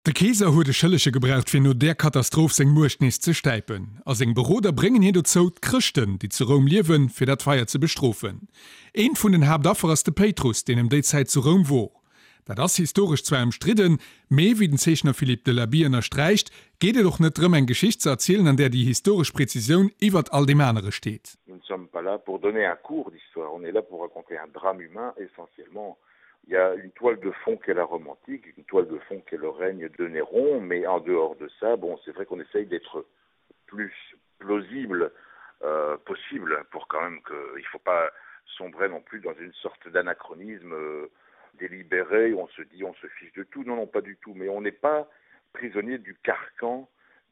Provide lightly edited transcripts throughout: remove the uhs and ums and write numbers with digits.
De Keeser huet e Schëllege gebraucht fir no där Katastroph seng Muecht nees ze stäipen. A seng Beroder bréngen hien dozou, d'Chrëschten, déi zu Roum liewen, fir dat Feier ze bestrofen. Eent vun den Haaptaffer ass de Péitrus, deen ëm déi Zäit zu Roum wor. Dat ass historesch zwar ëmstridden, mee wéi den Zeechner Philippe Delaby ënnersträicht, geet et och net drëm, eng Geschicht ze erzielen, an där déi historesch Prezisioun iwwert all deem anere steet. Nous ne sommes pas là pour donner un cours d'histoire, on est là pour raconter un drame humain essentiellement. Il y a une toile de fond qui est la Rome antique, une toile de fond qui est le règne de Néron, mais en dehors de ça, bon, c'est vrai qu'on essaye d'être plus plausible euh, possible pour quand même qu'il ne faut pas sombrer non plus dans une sorte d'anachronisme euh, délibéré où on se dit on se fiche de tout non non pas du tout mais on n'est pas prisonnier du carcan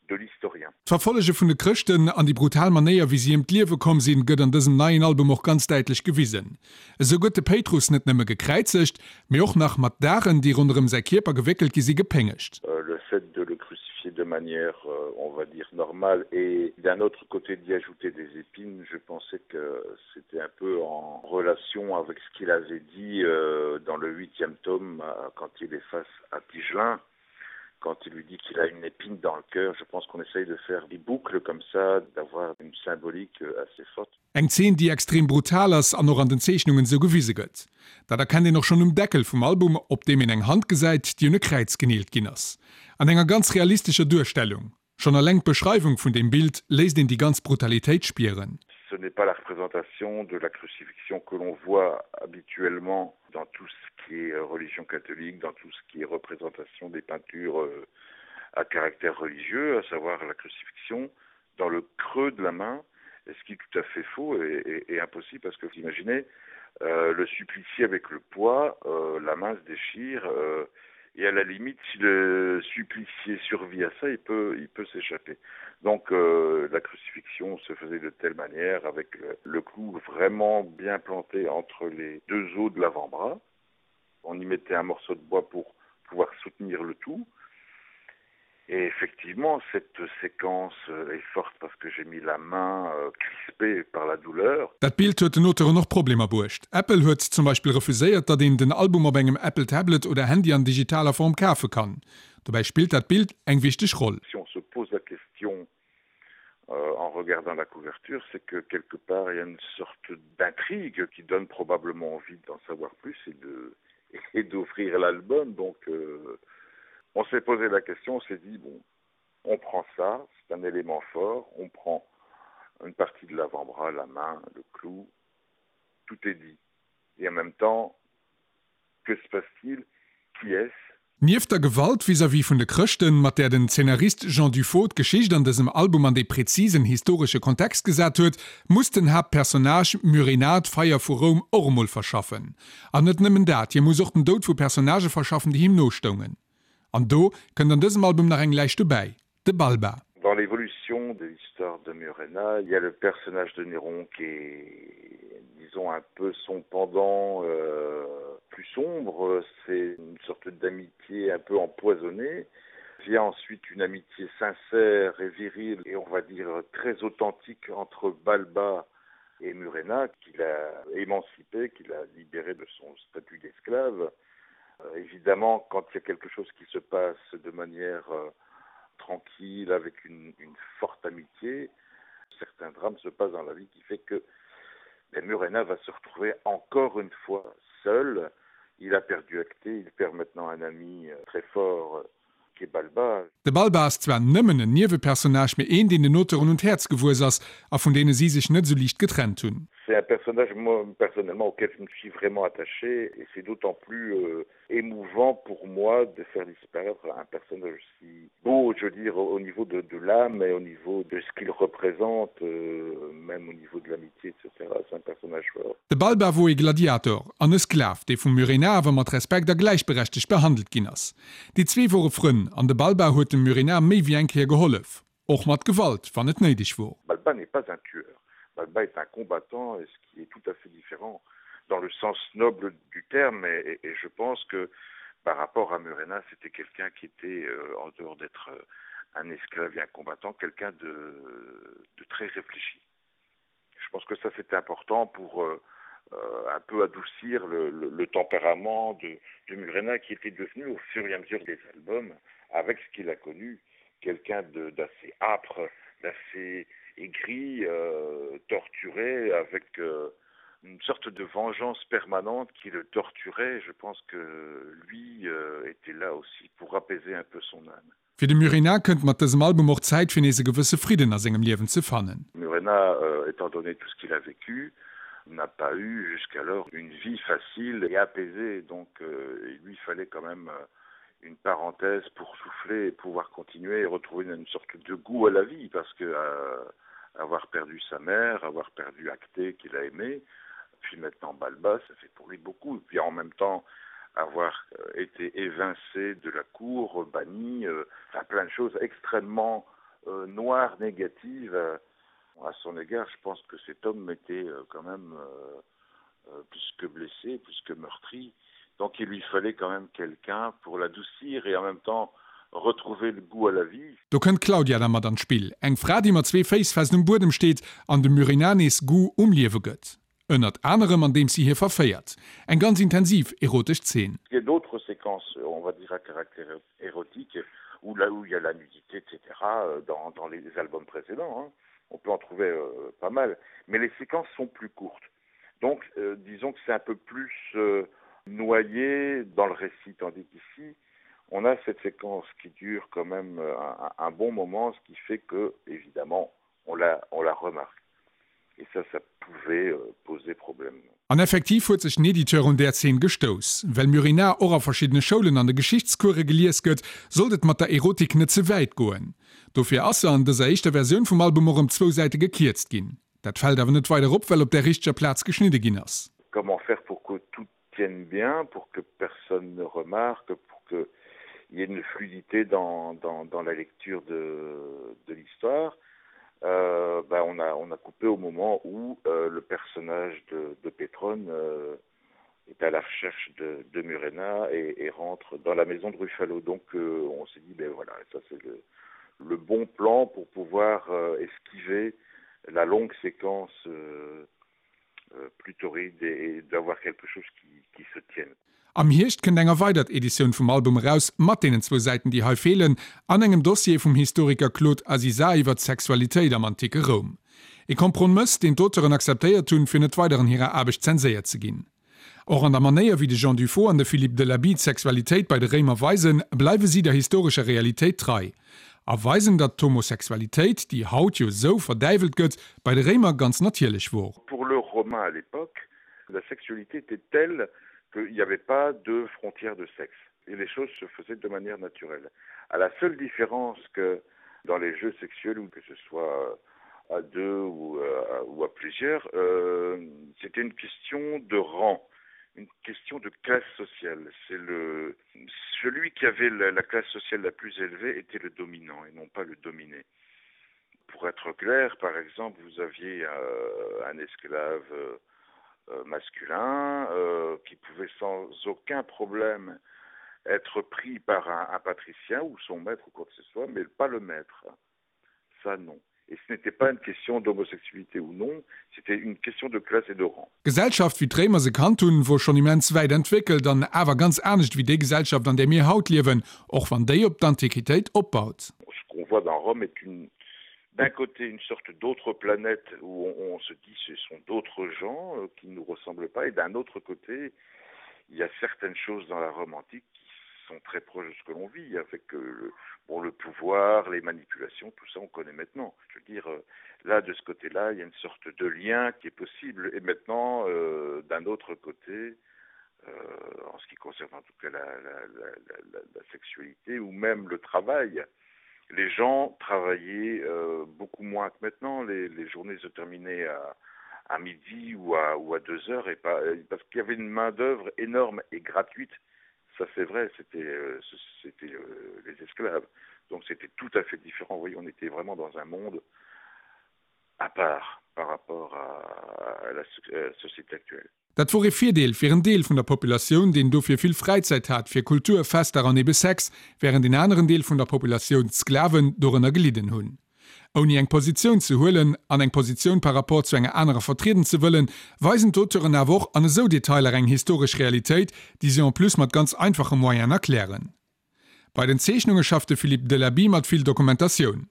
de l'historien. D'Verfollege vun de Chrëschten an déi brutal Manéier wéi si ëm d'Liewe komm sinn, gëtt an dësem neien Album och ganz däitlech gewisen. Esou gëtt de Péitrus net nëmme gekräizegt, mee och nach mat Daren, déi ronderëm säi Kierper gewéckelt gi si, gepéngegt. Le fait de le crucifier de manière, on va dire, normale et d'un autre côté d'y ajouter des épines, je pensais que c'était un peu en relation avec ce qu'il avait dit dans le huitième tome quand il est face à Tigelin. quand il lui dit qu'il a une épine dans le cœur, je pense qu'on essaye de faire des boucles comme ça, d'avoir une symbolique euh, assez forte. Eng Zeen, déi extrem brutal ass an och an den Zeechnungen esou gewise gëtt. Dat erkennt een och schonn um Deckel vum Album, op deem een eng Hand gesäit, déi un e Kräiz geneelt ginn ass. An enger ganz realistescher Duerstellung. Schonn eleng d'Beschreiwung vun deem Bild léisst een déi ganz Brutalitéit spieren. Ce n'est pas la représentation de la crucifixion que l'on voit habituellement dans tout ce qui est euh, religion catholique, dans tout ce qui est représentation des peintures euh, à caractère religieux, à savoir la crucifixion dans le creux de la main, ce qui est tout à fait faux et, et, et impossible parce que vous imaginez euh, le supplicié avec le poids, euh, la main se déchire euh, et à la limite si le supplicié survit à ça, il peut, il peut s'échapper. Donc euh, la crucifixion se faisait de telle manière avec le, le clou vraiment bien planté entre les deux os de l'avant-bras. On y mettait un morceau de bois pour pouvoir soutenir le tout. Et effectivement, cette séquence euh, est forte parce que j'ai mis la main euh, crispée par la douleur. Dat Bild huet den Auteuren och Problemer bruecht. Apple huet zum Beispill refuséiert, datt een den Album op engem Apple Tablet oder Handy an digitaler Form kafe kann. Dobäi spillt dat Bild eng wichteg Roll. Si on se pose la question euh, en regardant la couverture, c'est que quelque part il y a une sorte d'intrigue qui donne probablement envie d'en savoir plus et de et d'offrir l'album. Donc euh, on s'est posé la question, on s'est dit bon, on prend ça, c'est un élément fort, on prend une partie de l'avant-bras, la main, le clou, tout est dit. Et en même temps, que se passe-t-il Qui est-ce Nieft der Gewalt vis-à-vis vun de Chrëschten, mat där den Zeenarist Jean Dufaux d'Geschicht an dësem Album an dee prezisen historesche Kontext gesat huet, muss den Haaptpersonnage Murena d'Feier vu Roum och emol verschaffen. An net nëmmen dat, hie muss och den Doud vu Personnagë verschaffen, déi him no stoungen. An do kënnt an dësem Album nach eng Läich dobäi, de Balba. Dans l'évolution de l'histoire de Murena, il y a le personnage de Néron qui est disons un peu son pendant euh, plus sombre, c'est une sorte d'amitié un peu empoisonnée vient ensuite une amitié sincère et virile et on va dire très authentique entre Balba et Murena qu'il a émancipé, qu'il a libéré de son statut d'esclave. Euh, évidemment, quand il y a quelque chose qui se passe de manière euh, tranquille, avec une, une forte amitié, certains drames se passent dans la vie qui fait que ben, Murena va se retrouver encore une fois seul. Il a perdu Acté, il perd maintenant un ami euh, très fort qui est Balba. De Balba ass zwar nëmmen en Niewepersonnage, mee een, deen den Auteuren un d'Häerz gewuess ass a vun deene si sech net esou liicht getrennt hunn. C'est un personnage moi personnellement auquel je me suis vraiment attaché et c'est d'autant plus euh, émouvant pour moi de faire disparaître un personnage aussi beau, je veux dire au niveau de, de l'âme et au niveau de ce qu'il représente, euh, même au niveau de l'amitié, etc. C'est un personnage fort. De Balba wor ee Gladiator an e Sklav, dee vum Murena awer mat Respekt a gläichberechtegt behandelt ginn ass. Déi zwee wore Frënn an de Balba huet dem Murena méi wéi eng Kéier gehollef, och mat Gewalt, wann et néideg wor. Balba n'est pas un tueur. Balba est un combattant et ce qui est tout à fait différent dans le sens noble du terme et, et, et je pense que par rapport à Murena, c'était quelqu'un qui était euh, en dehors d'être euh, un esclave et un combattant, quelqu'un de, de très réfléchi. Je pense que ça c'était important pour euh, euh, un peu adoucir le, le, le tempérament de, de Murena qui était devenu au fur et à mesure des albums. avec ce qu'il a connu, quelqu'un d'assez âpre, d'assez aigri, euh, torturé, avec euh, une sorte de vengeance permanente qui le torturait. Je pense que lui euh, était là aussi pour apaiser un peu son âme. Fir de Murena kënnt mat dësem Album och d'Zäit fir nees e gewësse Fridden a sengem Liewen ze fannen. Murena, euh, étant donné tout ce qu'il a vécu, n'a pas eu jusqu'alors une vie facile et apaisée donc euh, il lui fallait quand même euh, une parenthèse pour souffler et pouvoir continuer et retrouver une sorte de goût à la vie parce que euh, avoir perdu sa mère, avoir perdu Acté qu'il a aimé, puis maintenant Balba, ça fait pour lui beaucoup et puis en même temps avoir euh, été évincé de la cour, banni, euh, enfin plein de choses extrêmement euh, noires, négatives euh, à son égard, je pense que cet homme était euh, quand même euh, euh, plus que blessé, plus que meurtri. Donc il lui fallait quand même quelqu'un pour l'adoucir et en même temps retrouver le goût à la vie. Do kënnt d'Claudia da mat an d'Spill, eng Fra déi mat zwee Féiss fest um Buedem steet an dem Murena nees Goût um Liewe gëtt. Ënnert anerem andeems si hie verféiert. Eng ganz intensiv erotesch Zeen. Il y a d'autres séquences, on va dire à caractère érotique, où là où il y a la nudité, etc. dans, dans les albums précédents, hein. On peut en trouver euh, pas mal, mais les séquences sont plus courtes. Donc euh, disons que c'est un peu plus euh, noyé dans le récit, tandis qu'ici, on a cette séquence qui dure quand même euh, un, un bon moment, ce qui fait que, évidemment, on la, on la remarque. Et ça, ça pouvait euh, poser problème. An effektiv huet sech den Editeur un där Zeen gestouss. Well Murena och a verschiddene Schoulen an de Geschichtscourse gelies gëtt, sollt et mat der Erotik net ze wäit goen. Dofir ass se an dëser éischter Versioun vum Album och ëm zwou Säite gekierzt ginn. Dat fält awer net weider op, well op der richteger Plaz geschnidde ginn ass. Comment faire pour que tout tienne bien, pour que personne ne remarque, pour que il y ait une fluidité dans, dans, dans la lecture de, de l'histoire euh, ben on, a, on a coupé au moment où euh, le personnage de, de Pétrone euh, est à la recherche de, de Murena et, et rentre dans la maison de Ruffalo. Donc euh, on s'est dit ben voilà, ça c'est le, le bon plan pour pouvoir euh, esquiver la longue séquence euh, euh, plus torride et, et d'avoir quelque chose qui, qui se tienne. Am Hierscht kënnt eng erweidert Editioun vum Album eraus, mat deenen zwou Säiten, déi hei feelen, an engem Dossier vum Historiker Claude Aziza iwwer d'Sexualitéit am anticke Roum. E Kompromëss, deen d'Auteuren akzeptéiert hunn, fir net weider an hirer Aarbecht zenséiert ze ginn. Och an der Manéier, wéi de Jean Dufaux an de Philippe Delaby d'Sexualitéit bei de Réimer weisen, bleiwe si der historescher Realitéit trei. A weisen, datt d'Homosexualitéit, déi haut jo sou verdäiwelt gëtt, bei de Réimer ganz natierlech wor. Pour le Romain à l'époque, la sexualité était telle qu'il n'y avait pas de frontières de sexe et les choses se faisaient de manière naturelle. À la seule différence que dans les jeux sexuels ou que ce soit à deux ou à, ou à plusieurs, euh, c'était une question de rang, une question de classe sociale. C'est le celui qui avait la, la classe sociale la plus élevée était le dominant et non pas le dominé. Pour être clair, par exemple, vous aviez euh, un esclave euh, euh, masculin euh, qui pouvait sans aucun problème être pris par un, un patricien ou son maître ou quoi que ce soit, mais pas le maître. Ça non. Et ce n'était pas une question d'homosexualité ou non, c'était une question de classe et de rang. D'Gesellschaft wéi d'Réimer se kannt hunn, wor schonn immens wäit entwéckelt an awer ganz anescht wéi déi Gesellschaft an där mir haut liewen, och wann déi op d'Antiquitéit opbaut. Ce qu'on voit dans Rome est une d'un côté une sorte d'autre planète où on, on se dit ce sont d'autres gens euh, qui ne nous ressemblent pas et d'un autre côté il y a certaines choses dans la Rome antique qui sont très proches de ce que l'on vit avec euh, le, bon, le pouvoir, les manipulations, tout ça on connaît maintenant. Je veux dire euh, là de ce côté là il y a une sorte de lien qui est possible et maintenant euh, d'un autre côté euh, en ce qui concerne en tout cas la, la, la, la, la sexualité ou même le travail, les gens travaillaient euh, beaucoup moins que maintenant les, les journées se terminaient à, à midi ou à, ou à deux heures et pas euh, parce qu'il y avait une main d'oeuvre énorme et gratuite ça c'est vrai c'était euh, c'était euh, les esclaves donc c'était tout à fait différent vous voyez on était vraiment dans un monde à part par rapport à, à la euh, société actuelle. Dat wor ee Virdeel fir en Deel vun der Populatioun, deen dofir vill Fräizäit hat fir Kultur, Fester an ebe Sex, wärend een aneren Deel vun der Populatioun, d'Sklaven, dorënner gelidden hunn. Ouni eng Positioun ze huelen an eng Positioun par rapport zu enger anerer vertrieden ze wëllen, weisen d'Auteuren awer och an esou Detailer eng historesch Realitéit, déi si en plus mat ganz einfache Moyenen erklären. Bei den Zeechnunge schafft de Philippe Delaby mat vill Dokumentatioun.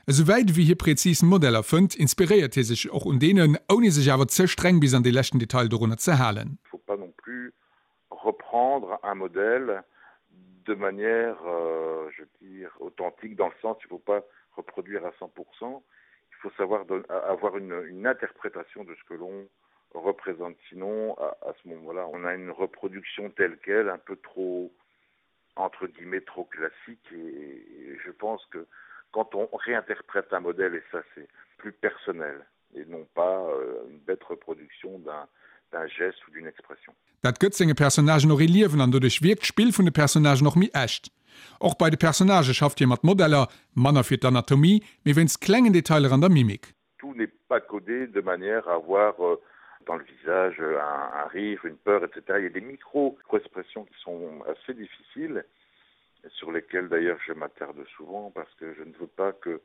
Esou wäit ewéi hie präzis Modeller fënnt, inspiréiert hie sech och un deenen, ouni sech awer ze streng bis an dee leschten Detail dorunner ze halen. Faut pas non plus reprendre un modèle de manière euh, je veux dire authentique dans le sens il faut pas reproduire à 100%, il faut savoir avoir une, une interprétation de ce que l'on représente sinon à, à ce moment là on a une reproduction telle quelle un peu trop entre guillemets trop classique et, et je pense que quand on réinterprète un modèle et ça c'est plus personnel et non pas euh, une bête reproduction d'un d'un geste ou d'une expression. Dat gëtt senge Personnagen och ee Liewen an doduerch wierkt d'Spill vun de Personnagen och méi echt. Och bei de Personnagë schafft hie mat Modeller, manner fir d'Anatomie, mee wéinst klengen Detailer an der Mimik. Tout n'est pas codé de manière à avoir euh, dans le visage un, un rire, une peur, etc. Il y a des micro-expressions qui sont assez difficiles, sur lesquelles d'ailleurs je m'attarde souvent parce que je ne veux pas que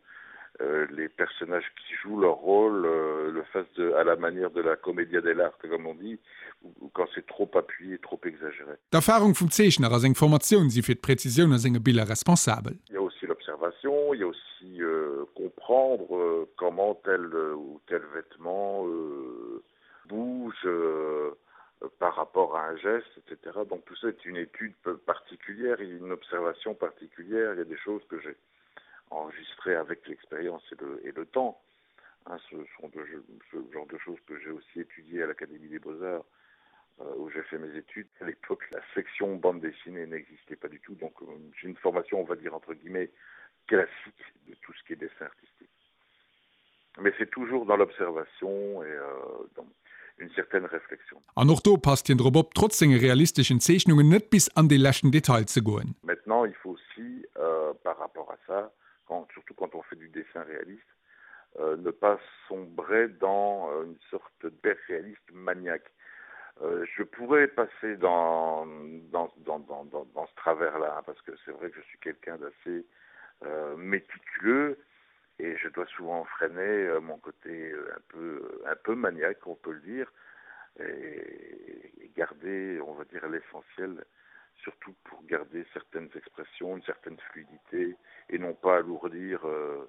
euh, les personnages qui jouent leur rôle euh, le fassent de, à la manière de la comédia dell'arte comme on dit ou, ou quand c'est trop appuyé, trop exagéré. D'Erfahrung vum Zeechner a seng Formatioun si fir d'Präzisioun a senge Biller responsabel. Il y a aussi l'observation, il y a aussi euh, comprendre euh, comment tel euh, ou tel vêtement euh, bouge euh, par rapport à un geste, etc. Donc tout ça est une étude particulière et une observation particulière. Il y a des choses que j'ai enregistrées avec l'expérience et le, et le temps. Hein, ce sont de, ce genre de choses que j'ai aussi étudié à l'Académie des Beaux-Arts euh, où j'ai fait mes études. À l'époque, la section bande dessinée n'existait pas du tout, donc euh, j'ai une formation, on va dire entre guillemets, classique de tout ce qui est dessin artistique. Mais c'est toujours dans l'observation et euh, dans une certaine réflexion. An och do passt hien drop op, trotz senge realisteschen Zeechnungen net bis an dee leschten Detail ze goen. Maintenant, il faut aussi, euh, par rapport à ça, quand, surtout quand on fait du dessin réaliste, euh, ne pas sombrer dans euh, une sorte d'hyperréaliste maniaque. Euh, je pourrais passer dans, dans, dans, dans, dans, dans ce travers-là, parce que c'est vrai que je suis quelqu'un d'assez euh, méticuleux et je dois souvent freiner euh, mon côté euh, un peu, un peu maniaque, on peut le dire, et, et garder, on va dire, l'essentiel, surtout pour garder certaines expressions, une certaine fluidité, et non pas alourdir euh,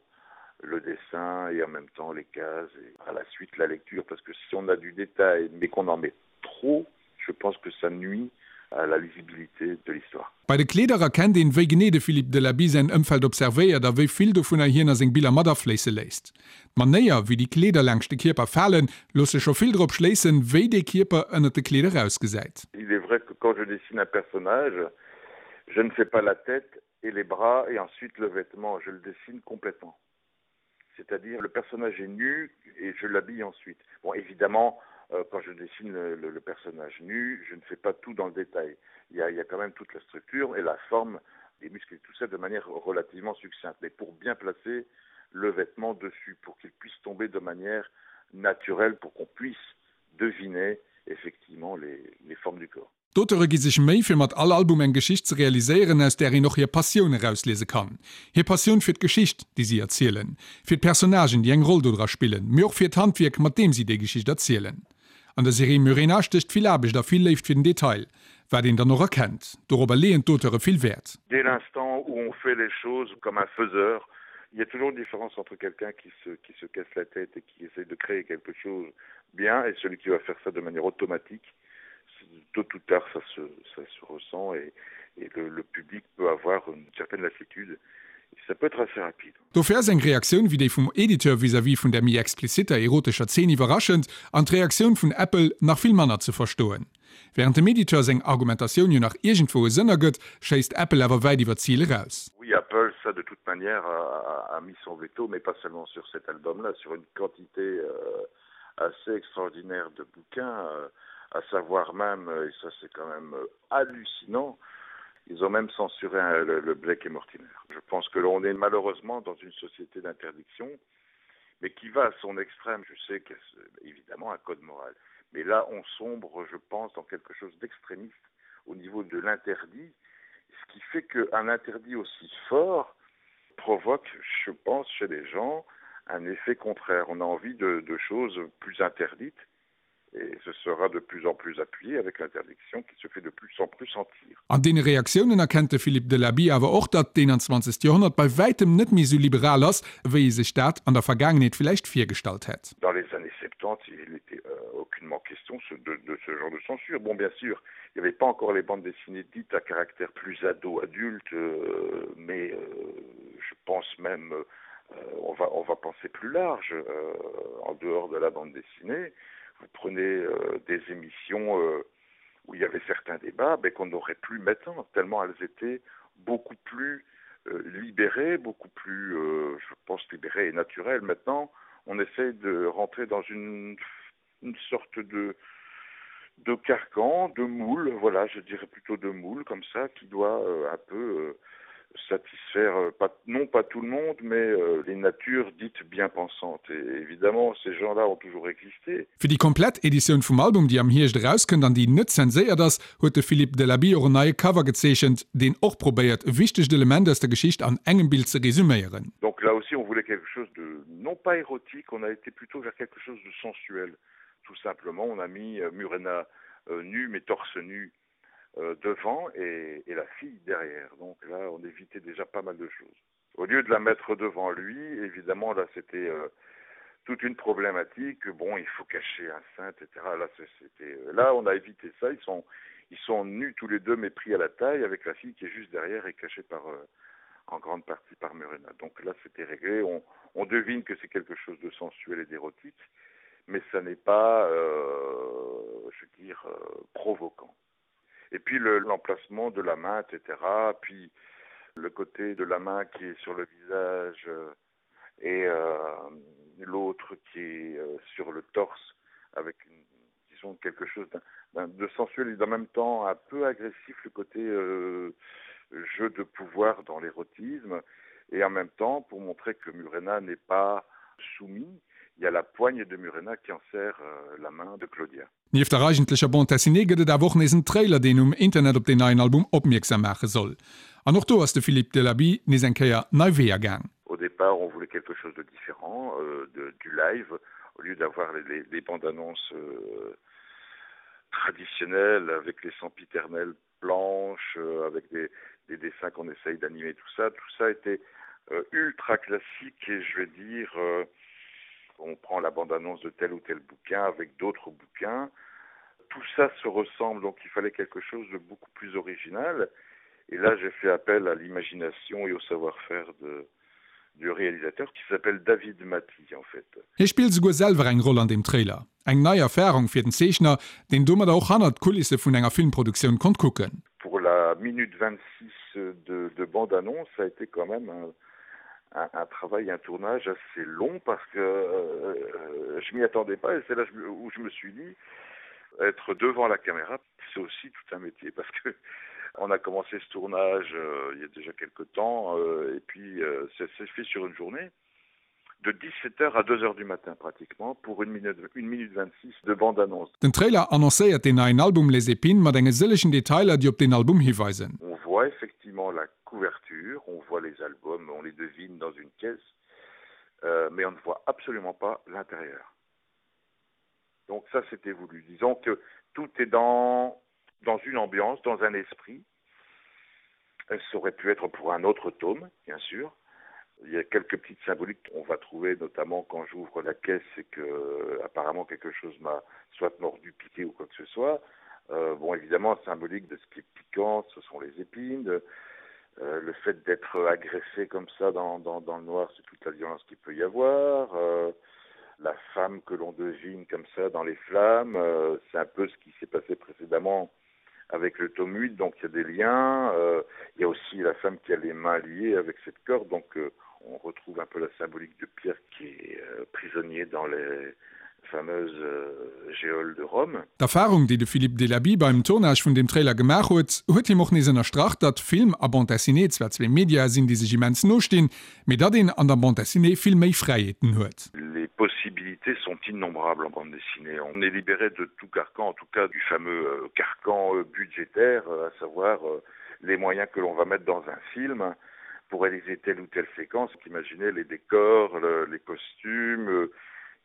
le dessin et en même temps les cases et à la suite la lecture, parce que si on a du détail mais qu'on en met trop, je pense que ça nuit à la lisibilité de l'histoire. Bei de Kleeder erkennt een, wéi genee de Philippe Delaby säin Ëmfeld observéiert a wéi vill dovunner hien a seng Biller mat afléisse léisst. D'Manéier, wéi déi Kleeder laangscht de Kierper falen, loosse scho vill drop schléissen, wéi dee Kierper ënnert de Kleeder ausgesäit. Il est vrai que quand je dessine un personnage, je ne fais pas la tête et les bras et ensuite le vêtement, je le dessine complètement. C'est-à-dire le personnage est nu et je l'habille ensuite. Bon évidemment, euh, quand je dessine le, le, le personnage nu, je ne fais pas tout dans le détail. Il y a, il y a quand même toute la structure et la forme des muscles et tout ça de manière relativement succincte, mais pour bien placer le vêtement dessus, pour qu'il puisse tomber de manière naturelle, pour qu'on puisse deviner effectivement les, les formes du corps. D'Auteure gi sech Méi, fir mat all Album eng Geschicht ze realiséieren, aus där een och hir Passioun erausliese kann. Hir Passioun fir d'Geschicht, déi si erzielen, fir d'Personnagen, déi eng Roll dodra spillen, mee och fir d'Handwierk, mat deem si déi Geschicht erzielen. An der Serie Murena stécht vill Aarbecht a vill Léift fir den Detail, wat een dann och erkennt. Dorobber leeën d'Auteure vill Wäert. Dès l'instant où on fait les choses comme un faiseur, il y a toujours une différence entre quelqu'un qui se, qui se casse la tête et qui essaie de créer quelque chose bien et celui qui va faire ça de manière automatique. Tôt ou tard ça se, ça se ressent et, et le, le public peut avoir une certaine lassitude et ça peut être assez rapide. Dofir ass eng Reaktioun wéi déi vum Editeur vis-à-vis vun der méi expliziter erotescher Zeen iwwerraschend an d'Reaktioun vun Apple nach vill manner ze verstoen. Wärend dem Editeur seng Argumentatioun jo nach iergendwou e Sënn ergëtt, schéisst Apple awer wäit iwwer d'Zil eraus. Oui, Apple, ça de toute manière a, a mis son veto, mais pas seulement sur cet album-là, sur une quantité euh, assez extraordinaire de bouquins, euh, à savoir même, et ça c'est quand même euh, hallucinant, ils ont même censuré euh, le, le Blake et Mortimer. Je pense que l'on est malheureusement dans une société d'interdiction, mais qui va à son extrême. Je sais qu'il y a évidemment un code moral. Mais là, on sombre, je pense, dans quelque chose d'extrémiste au niveau de l'interdit, ce qui fait qu'un interdit aussi fort provoque, je pense, chez les gens, un effet contraire. On a envie de, de choses plus interdites. Et ce sera de plus en plus appuyé avec l'interdiction qui se fait de plus en plus sentir. An deene Reaktiounen erkennt de Philippe Delaby awer och, datt d'21. Joerhonnert bei wäitem net méi esou liberal ass, wéi ee sech dat an der Vergaangenheet villäicht virgestallt hätt. Dans les années 70, il n'était aucunement question de de ce genre de censure. Bon, bien sûr, il n'y avait pas encore les bandes dessinées dites à caractère plus ado adulte, mais je pense même on va on va penser plus large en dehors de la bande dessinée. Vous prenez euh, des émissions euh, où il y avait certains débats mais qu'on n'aurait plus maintenant tellement elles étaient beaucoup plus euh, libérées, beaucoup plus euh, je pense libérées et naturelles. Maintenant, on essaie de rentrer dans une, une sorte de de carcan, de moule, voilà, je dirais plutôt de moule comme ça qui doit euh, un peu euh, satisfaire euh, pas, non pas tout le monde, mais euh, les natures dites bien pensantes. Et évidemment, ces gens-là ont toujours existé. Fir déi komplett Editioun vum Album, déi am Hierscht erauskënnt an déi net zenséiert ass, huet de Philippe Delaby och en neie Cover gezeechent, deen och probéiert, e wichtegt Element aus der Geschicht an engem Bild ze resuméieren. Donc là aussi on voulait quelque chose de non pas érotique, on a été plutôt vers quelque chose de sensuel. Tout simplement, on a mis euh, Murena euh, nue mais torse nu euh, devant et, et la fille derrière. Donc là, on évitait déjà pas mal de choses. Au lieu de la mettre devant lui, évidemment, là c'était euh, toute une problématique. Bon, il faut cacher un sein, etc. Là, c'était, euh, là on a évité ça. Ils sont, ils sont nus tous les deux, mais pris à la taille, avec la fille qui est juste derrière et cachée par, euh, en grande partie par Murena. Donc là, c'était réglé. On, on devine que c'est quelque chose de sensuel et d'érotique, mais ça n'est pas, euh, je veux dire, euh, provoquant. Et puis l'emplacement le, de la main, etc. Puis le côté de la main qui est sur le visage euh, et euh, l'autre qui est euh, sur le torse avec une, disons quelque chose d'un de sensuel et en même temps un peu agressif le côté euh, jeu de pouvoir dans l'érotisme et en même temps pour montrer que Murena n'est pas soumis, il y a la poigne de Murena qui en serre euh, la main de Claudia. Nieft der eigentlecher Bande dessinée gëtt et awer och nees en Trailer, deen um Internet op deen neien Album opmierksam maache soll. An och do ass de Philippe Delaby nees eng Kéier nei Weeër gaang. Au départ, on voulait quelque chose de différent euh, de, du live au lieu d'avoir les, les, les bandes annonces euh, traditionnelles avec les sempiternelles planches, euh, avec des, des dessins qu'on essaye d'animer, tout ça. Tout ça était euh, ultra classique et je vais dire euh, on prend la bande-annonce de tel ou tel bouquin avec d'autres bouquins. Tout ça se ressemble, donc il fallait quelque chose de beaucoup plus original. Et là, j'ai fait appel à l'imagination et au savoir-faire de, du réalisateur qui s'appelle David Mathy en fait. Hie spillt esouguer selwer eng Roll an deem Trailer. Eng nei Erfarung fir den Zeechner, deen domadder och hannert d'Kulisse vun enger Filmproduktioun konnt kucken. Pour la minute 26 de, de bande-annonce, ça a été quand même un, un, un travail, un tournage assez long parce que euh, je m'y attendais pas et c'est là où je me suis dit être devant la caméra, c'est aussi tout un métier parce que on a commencé ce tournage euh, il y a déjà quelque temps euh, et puis euh, ça s'est fait sur une journée de 17h à 2h du matin pratiquement pour une minute, une minute 26 de bande annonce. Den Trailer annoncéiert deen neien Album Les Épines mat enge sëllegen Detailer, déi op deen Album hiweisen. On voit effectivement la couverture, on voit les albums, on les devine dans une caisse, euh, mais on ne voit absolument pas l'intérieur. Donc ça c'était voulu. Disons que tout est dans, dans une ambiance, dans un esprit. Ça aurait pu être pour un autre tome, bien sûr. Il y a quelques petites symboliques qu'on va trouver, notamment quand j'ouvre la caisse et que apparemment quelque chose m'a soit mordu, piqué ou quoi que ce soit. Euh, bon évidemment symbolique de ce qui est piquant, ce sont les épines, de, euh, le fait d'être agressé comme ça dans, dans, dans le noir, c'est toute la violence qu'il peut y avoir. Euh, la femme que l'on devine comme ça dans les flammes, euh, c'est un peu ce qui s'est passé précédemment avec le tome 8, donc il y a des liens. Euh, il y a aussi la femme qui a les mains liées avec cette corde, donc euh, on retrouve un peu la symbolique de Pierre qui est euh, prisonnier dans les fameuse euh, Géole de Rome. D'Erfarung, déi de Philippe Delaby beim Tournage vun deem Trailer gemaach huet, huet him och nees ënnerstrach, datt Film a Bande dessinée zwar zwee Mediae sinn, déi sech immens no stinn, mee datt een an der Bande dessinée vill méi Fräiheeten huet. Les possibilités sont innombrables en bande dessinée. On est libéré de tout carcan, en tout cas du fameux euh, carcan euh, budgétaire, à savoir les moyens que l'on va mettre dans un film pour réaliser telle ou telle séquence. Imaginez les décors, le, les costumes, euh,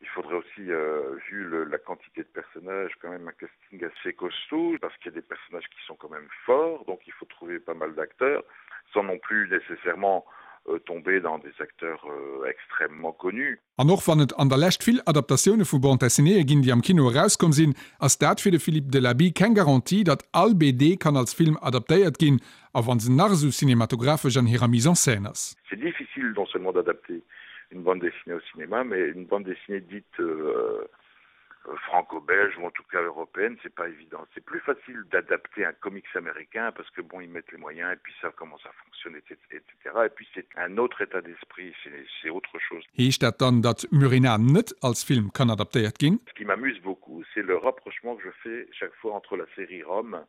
Il faudrait aussi, euh, vu le, la quantité de personnages, quand même un casting assez costaud, parce qu'il y a des personnages qui sont quand même forts, donc il faut trouver pas mal d'acteurs, sans non plus nécessairement euh, tomber dans des acteurs euh, extrêmement connus. An och wann et an der Lescht vill Adaptatioune vu Bande dessinéeë ginn, déi am Kino erauskomm sinn, ass dat fir de Philippe Delaby keng Garantie, datt all BD kann als Film adaptéiert ginn, a wa se nach esou cinematographesch an hirer Mise en scène ass. C'est difficile non seulement d'adapter une bande dessinée au cinéma, mais une bande dessinée dite euh, franco-belge ou en tout cas européenne, c'est pas évident. C'est plus facile d'adapter un comics américain parce que bon, ils mettent les moyens et puis savent comment ça fonctionne, etc. Et puis c'est un autre état d'esprit, c'est autre chose. Heescht dat dann, datt Murena net als Film kann adaptéiert ginn? Ce qui m'amuse beaucoup, c'est le rapprochement que je fais chaque fois entre la série Rome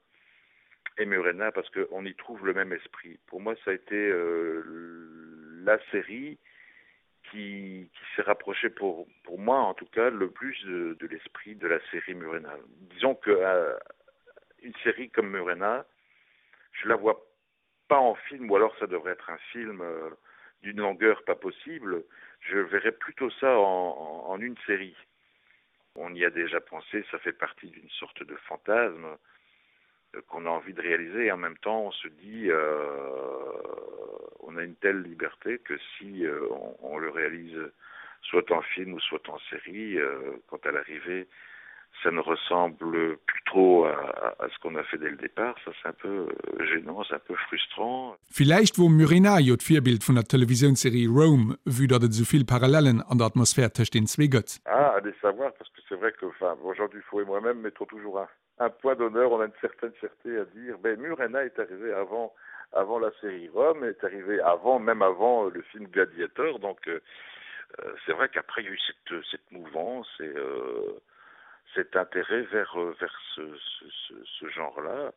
et Murena parce qu'on y trouve le même esprit. Pour moi, ça a été euh, la série qui, qui s'est rapprochée pour, pour moi en tout cas le plus de, de l'esprit de la série Murena. Disons que euh, une série comme Murena, je la vois pas en film ou alors ça devrait être un film euh, d'une longueur pas possible. Je verrais plutôt ça en, en, en une série. On y a déjà pensé, ça fait partie d'une sorte de fantasme euh, qu'on a envie de réaliser et en même temps on se dit euh, on a une telle liberté que si euh, on, on le réalise soit en film ou soit en série euh, quand à l'arrivée ça ne ressemble plus trop à, à, à ce qu'on a fait dès le départ ça c'est un peu euh, gênant c'est un peu frustrant Villäicht wor Murena jo d'Virbild vun der Televisiounsserie Rome, vue datt et esou vill Parallellen an der Atmosphär tëscht den zwee gëtt. Ah, allez savoir, parce que c'est vrai que enfin Jean Dufault et moi-même mettons toujours un, un point d'honneur, on a une certaine fierté à dire ben Murena est arrivé avant avant la série Rome est arrivé avant même avant euh, le film Gladiator donc euh, euh, c'est vrai qu'après il y a eu cette, cette mouvance et euh, cet intérêt vers euh, vers ce, ce, ce, ce genre là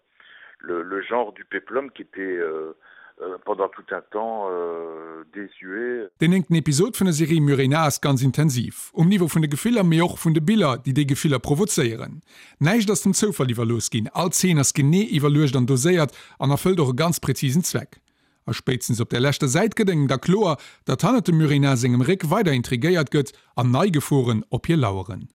le, le genre du péplum qui était euh, euh, pendant tout un temps euh, désuet. Den néngten Episod vun der Serie Murena ass ganz intensiv, um Niveau vun de Gefiller, mee och vun de Biller, déi déi Gefiller provozéieren. Näischt ass dem Zoufall iwwerlooss ginn, all Zeen ass genee iwwerluecht an doséiert an erfëllt och e ganz präzisen Zweck. A spéitstens op der leschter Säit gëtt engem da kloer, datt hannert dem Murena sengem Réck weider intrigéiert gëtt an nei Geforen op hie laueren.